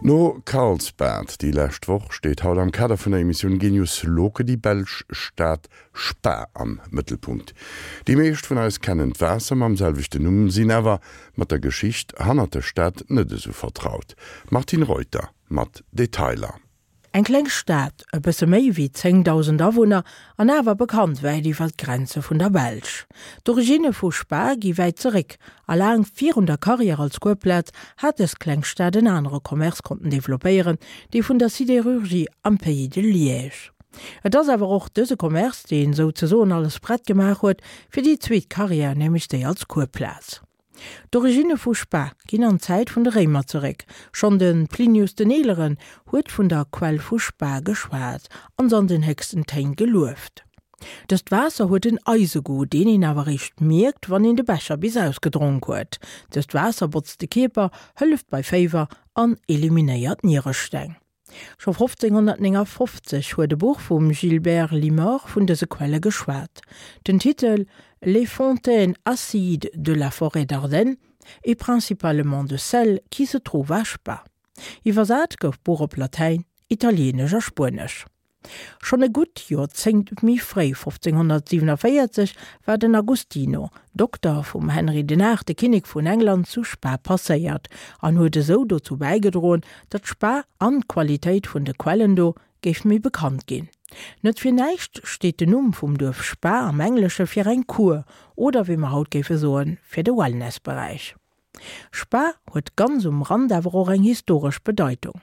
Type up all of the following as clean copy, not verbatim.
No Karlsbad déi lescht Woch steet haut am Kader vun der Emissioun Genius Loci déi belsch Stad Spa am Mëttelpunkt. Déi meescht vun eis kennen d'Waasser mam selwechten Numm, sinn awer mat der Geschicht hannert der Stad net esou vertraut. Martine Reuter mat Detailer. Eng kleng Stad, e bësse méi wéi 10.000 Awunner, an awer bekannt wäit iwwer d'Grenze vun der Belsch. D'Originne vu Spa gi wäit zeréck, a laang virun der Karriär als Kuerplaz hat dës kleng Stad en anere Commerce konnten developpéieren, dee vun der Sidérurgie am Pays de Liège. Et ass awer och dëse Commerce, deen souzesoen alles prett gemaach huet fir déi zweet Karriär, nämlech déi als Kuerplaz. D'Originne vu Spa ginn an d'Zäit vun de Réimer zeréck. Schonn de Plinius den Eeleren huet vun der Quell vu Spa geschwat an se an den héchsten Téin gelueft. Dëst Waasser huet en Eisegoût, deen een awer eréischt mierkt, wann een de Becher bis ausgedronk huet. Dëst Waasser botzt de Kierper, hëlleft bei Féiwer an eliminéiert Nieresteng. Scho 1559 huet e Buch vum Gilbert Limor vun dëse Quelle geschwat. Den Titel Les fontaines acides de la forêt d'Ardennes et principalement de celle qui se trouve à Spa. Iwwersat gouf d'Buch op Latäin, Italieenesch a Spuenesch. Schonn e gutt Joerzéngt méi fréi, 1547, war den Agostino, Dokter vum Henry den Aachte, Kinnek vun England, zu Spa passéiert an huet esou dozou bäigedroen, datt Spa an d'Qualitéit vun de Quellen do géif méi bekannt ginn. Net fir näischt steet den Numm vum Duerf Spa am Englesche fir eng Kur oder wéi mer haut géife soen, fir de Wellnessberäich. Spa huet ganz um Rand awer och eng historesch Bedeitung.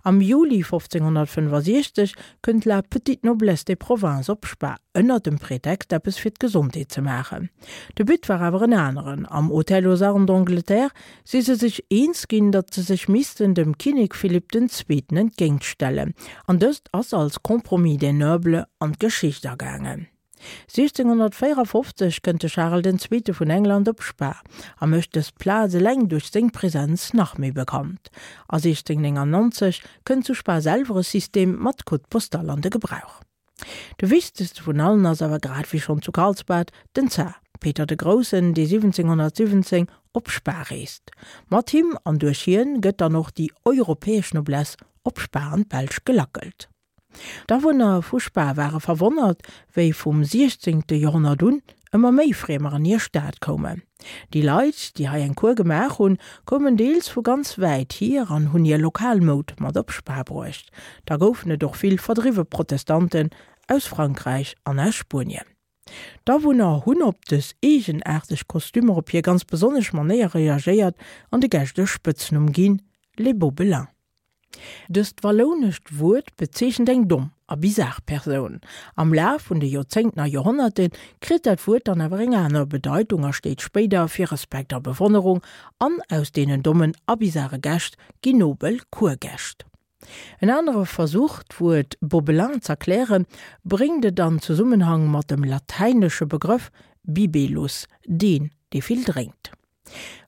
Am Juli 1565 kënnt la petite noblesse des provinces op Spa, ënner dem Pretext eppes fir d'Gesondheet ze maachen. De But war awer en aneren, Am Hôtel aux Armes d'Angleterre si se sech eens ginn, datt se sech missten dem Kinnek Philipp den Zweeten entgéintstellen, an dëst ass als Compromis des nobles an d'Geschicht agaangen. 1654 kënnt de Charel den Zweete vun England op Spa a mécht dës Plaz eleng duerch seng Presenz nach méi bekannt. A 1699 kënnt zu Spa selwer e System mat Code postal an de Gebrauch. De wichtegste vun allen ass awer, grad wéi schonn zu Karlsbad, den Zar Peter de Groussen, dee 1717 op Spa reest. Mat him an duerch hien gëtt dann och déi europäesch Noblesse op Spa an d'Belsch gelackelt. D'Awunner vu Spa ware verwonnert, wéi vum 16. Joerhonnert un ëmmer méi Friemer an hir Stad koumen. Déi Leit, déi hei eng Kur gemaach hunn, koumen deels vu ganz wäit hier an hunn hir lokal Moud mat op Spa bruecht. Da goufen et och vill verdriwwe Protestanten aus Frankräich an aus Spuenien. D'Awunner hunn op dës eegenaarteg Kostümer op hir ganz besonnesch Manéier reagéiert an de Gäscht e Spëtznumm ginn, Les Bobelins. Dëst wallounescht Wuert bezeechent eng domm a bizar Persoun. Am Laf vun de Joerzéngten a Joerhonnerte kritt dat Wuert dann awer eng aner Bedeitung a steet spéider fir Respekt a Bewonnerung, an aus deenen dommen a bizare Gäscht ginn nobel Kurgäscht. En anere Versuch, d'Wuert Bobelin z'erklären, bréngt et an Zesummenhang mat dem latäinesche Begrëff bibelus, deen, dee vill drénkt.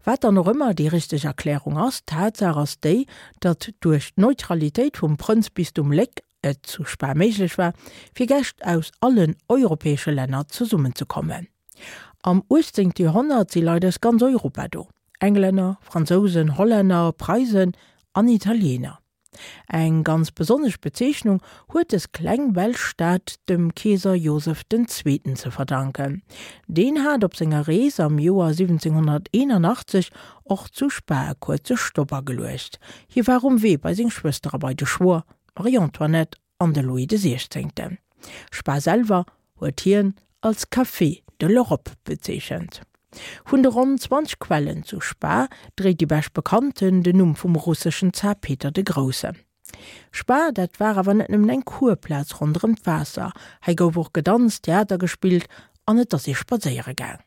Wat dann och ëmmer déi richteg Erklärung ass, d'Tatsaach ass déi, datt duerch d'Neutralitéit vum Prënzbistum Léck et zu Spa méiglech war, fir Gäscht aus allen europäesche Länner zesummenzekommen. Am 18. Joerhonnert si Leit aus ganz Europa do, Englänner, Fransousen, Hollänner, Preisen an Italiener. Eng ganz besonnesch Bezeechnung huet des kleng belsch Stad dem Keeser Joseph den Zweeten ze verdanken. Deen hat op senger Rees am Joer 1781 och zu Spa e kuerze Stopp ageluecht. Hie war um Wee bei seng Schwëster a bei de Schwoer, d'Marie-Antoinette an de Louis de Siechzéngten. Spa selwer huet hien als Café de l'Europe bezeechent. Vun de ronn 20 Quellen zu Spa dréit déi bescht bekannten den Numm vum russeschen Zar Peter de Groussen. Spa, dat war awer net nëmmen eng Kurplaz ronderëm d'Waasser, hei gouf och gedanzt, Theater gespillt an et ass ee spadséiere gaang.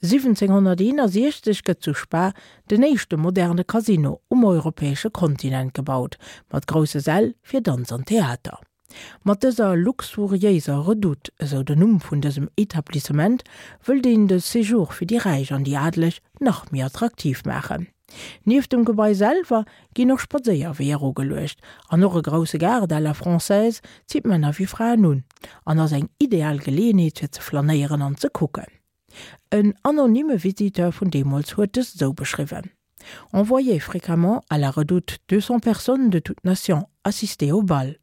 1761 gëtt zu Spa den éischte moderne Casino um europäesche Kontinent gebaut, mat grousse Säll fir Danz an Theater. Mat dëser luxuriéiser Redoute, esou den Numm vun dësem Etablissement, wëllt een de Séjour fir déi Räich an déi Adeleg nach méi attraktiv maachen. Nieft dem Gebai selwer ginn och Spadséierweeër ugeluecht an och e grousse Gaart à la française zitt Männer wéi Fraen un an ass eng ideal Geleeënheet fir ze flanéieren an ze kucken. En anonyme Visiteur vun deemools huet dëst esou beschriwwen. On voyait fréquemment à la redoute 200 personnes de toutes nations assister au bal.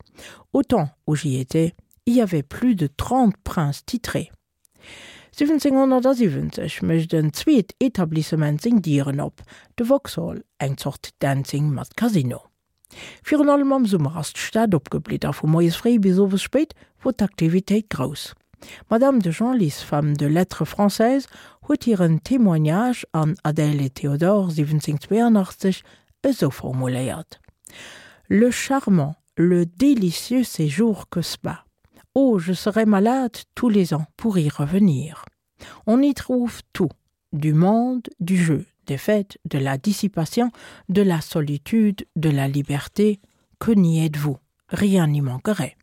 Au temps où j'y étais, il y avait plus de 30 princes titrés. 1770 mécht en zweet Etablissement seng Dieren op, de Vauxhall, eng Zort Dancing mat Casino. Virun allem am Summer ass d'Stad opgeblitt a vu moies fréi bis owes spéit wor d'Aktivitéit grouss. D'Madame de Genlis, femme de lettres française, huet hiren Témoignage an Adèle et Théodore 1782 esou formuléiert, Le charmant, le délicieux séjour que Spa! Oh, je serais malade tous les ans pour y revenir. On y trouve tout, du monde, du jeu, des fêtes, de la dissipation, de la solitude, de la liberté, que n'y êtes-vous? Rien n'y manquerait.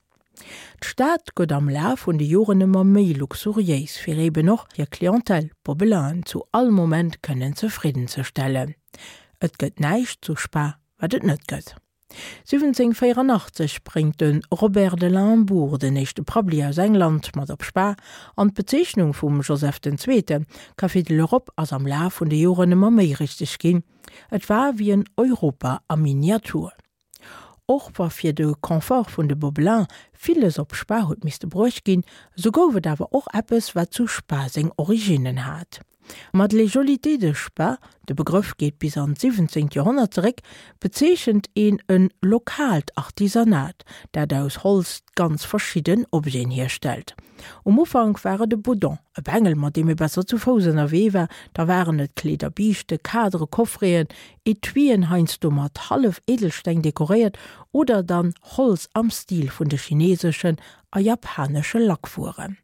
D'Stad gëtt am Laf vun de Joren ëmmer méi luxuriéis, fir eben och hir Clientèle, d'Bobelainen, zu all Moment kënnen zefridden ze stellen. Et gëtt näischt zu Spa, wat et net gëtt. 1784 bréngt de Robert de Limbourg den éischte Prabbeli aus England mat op Spa, an d'Bezeechnung vum Joseph den Zweete, Café de l'Europe, ass am Laf vun de Joren ëmmer méi richteg ginn. Et war wéi en Europa a Miniatur. Och wa fir de Confort vun de Bobelins villes op Spa huet misste bruecht ginn, sou gouf et awer och eppes, wat zu Spa seng Originnen hat. Mat Les Jolités de Spa, de Begrëff geet bis an d'siwwenzéngt Joerhonnert zeréck, bezeechent een e lokaalt Artisanat, dat aus Holz ganz verschidden Objeten hierstellt. Um Ufank war et e Boudon, e Bengel, mat deem ee besser zu Fouss ënnerwee war, da waren et Kleeder, Biischte, Kadere, Coffreten, Etuien, heiansdo mat Hallef-Edelsteng dekoréiert, oder dann Holz am Stil vun de chineeseschen a japanesche Lackwueren.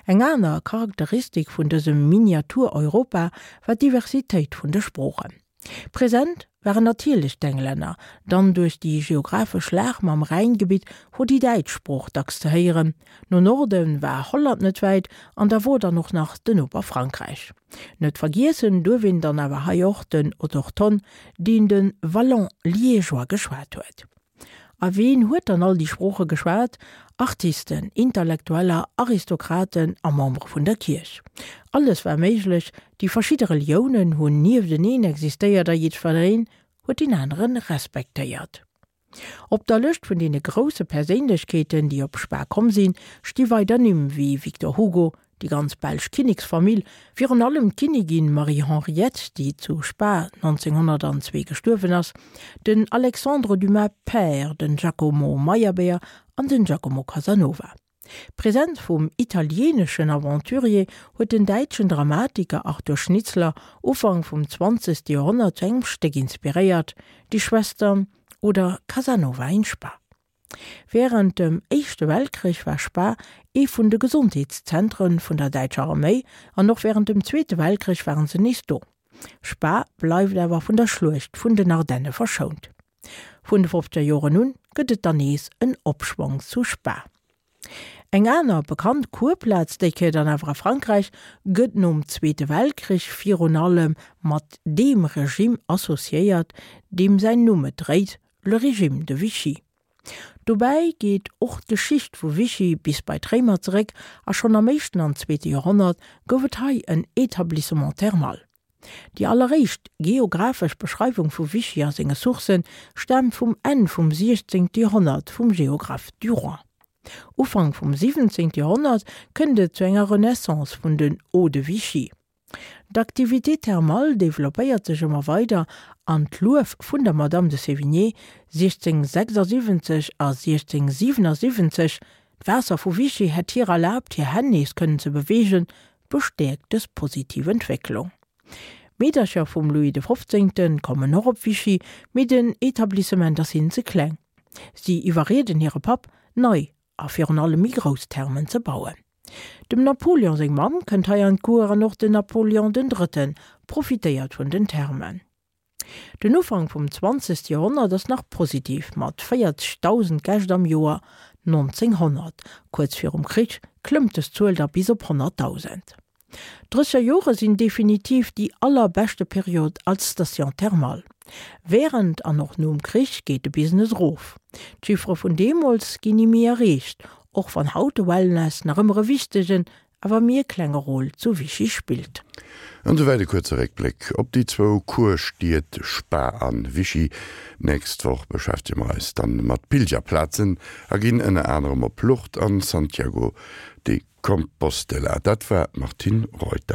Eng aner Charakteristik vun dësem Miniatur-Europa war d'Diversitéit vun de Sproochen. Present waren natierlech d'Englänner, dann duerch déi geographesch Lag mam Rhäingebitt wor déi däitsch Sprooch dacks ze héieren, no Norde war Holland net wäit an da wor dann och nach den Noper Frankräich. Net vergiessen duerf een dann awer hei och den Autochthon, deen de Wallon-Liégeois geschwat huet. A ween huet dann all déi Sprooche geschwat? Artisten, Intellektueller, Aristokraten a Membere vun der Kierch. Alles war méiglech, déi verschidde Reliounen hunn niefteneen existéiert a jiddwereen huet deen anere respektéiert. Op der Lëscht vun deene grousse Perséinlechkeeten, déi op Spa komm sinn, sti weider Nimm wéi Victor Hugo, Déi ganz belsch Kinneksfamill, virun allem d'Kinnigin Marie-Henriette, déi zu Spa 1902 gestuerwen ass, den Alexandre Dumas père, den Giacomo Meyerbeer an den Giacomo Casanova. D'Presenz vum italieeneschen Aventurier huet den däitschen Dramatiker Arthur Schnitzler Ufank vum zwanzegste Joerhonnert zu engem Stéck inspiréiert, Die Schwestern oder Casanova in Spa. Wärend dem Éischte Weltkrich war Spa ee vun de Gesondheetszentre vun der däitscher Arméi an och wärend dem Zweete Weltkrich waren se nees do. Spa bleift awer vun der Schluecht vun den Ardenne verschount. Vun de fofzeger Joren un gëtt et dann nees en Opschwong zu Spa. Eng aner bekannt Kurplaz, déi Kéier dann awer a Frankräich, gëtt nom Zweete Weltkrich virun allem mat deem Regimm associéiert, deem säin Numm et dréit, Le régime de Vichy. Dobäi geet och d'Geschicht vu Vichy bis bei d'Réimer zeréck a schonn am éischten an zweete Joerhonnert gouf et hei en Établissement thermal. Déi alleréischt geographesch Beschreiwung vu Vichy a senge Sourcë staamt vum Enn vum 16. Joerhonnert vum Géographe Duroy. Ufank vum 17. Joerhonnert kënnt et zu enger Renaissance vun den Eaux de Vichy. D'Activité thermale developpéiert sech ëmmer weider an d'Luef vun der Madame de Sévigné 1676 a 1677, d'Waasser vu Vichy hätt hir erlaabt hir Hänn nees kënnen ze beweegen, bestäerkt dës positiv Entwécklung. D'Meedercher vum Louis de Fofzéngte kommen och op Vichy, mee den Etablissement ass hinnen ze kleng. Si iwwerrieden hire Papp, nei a virun allem méi grouss Thermen ze bauen. Dem Napoleon seng Mamm kënnt hei an d'Cour an och den Napoleon den Drëtten profitéiert vun den Thermen. Den Ufank vum zwanzegste Joerhonnert ass nach positiv mat 40.000 Gäscht am Joer 1900. Kuerz virum Krich klëmmt des Zuel da bis op 100.000. D'Drësseger Jore sinn definitiv déi allerbeschte Period als Station thermale. Wärend an och nom Krich geet de Business erof. D'Chiffere vun deemools ginn ni méi erreecht, och wann haut de Wellness nach ëmmer e wichtegen. awer méi e klenge Rôle zu Vichy spillt. An souwäit e kuerze Réckbléck op déi zwou Kurstied Spa an Vichy. Nächst Woch beschäftege mer eis dann mat Pilgerplazen a ginn ënner anerem op Lourdes an Santiago de Compostela. Dat war d'Martine Reuter.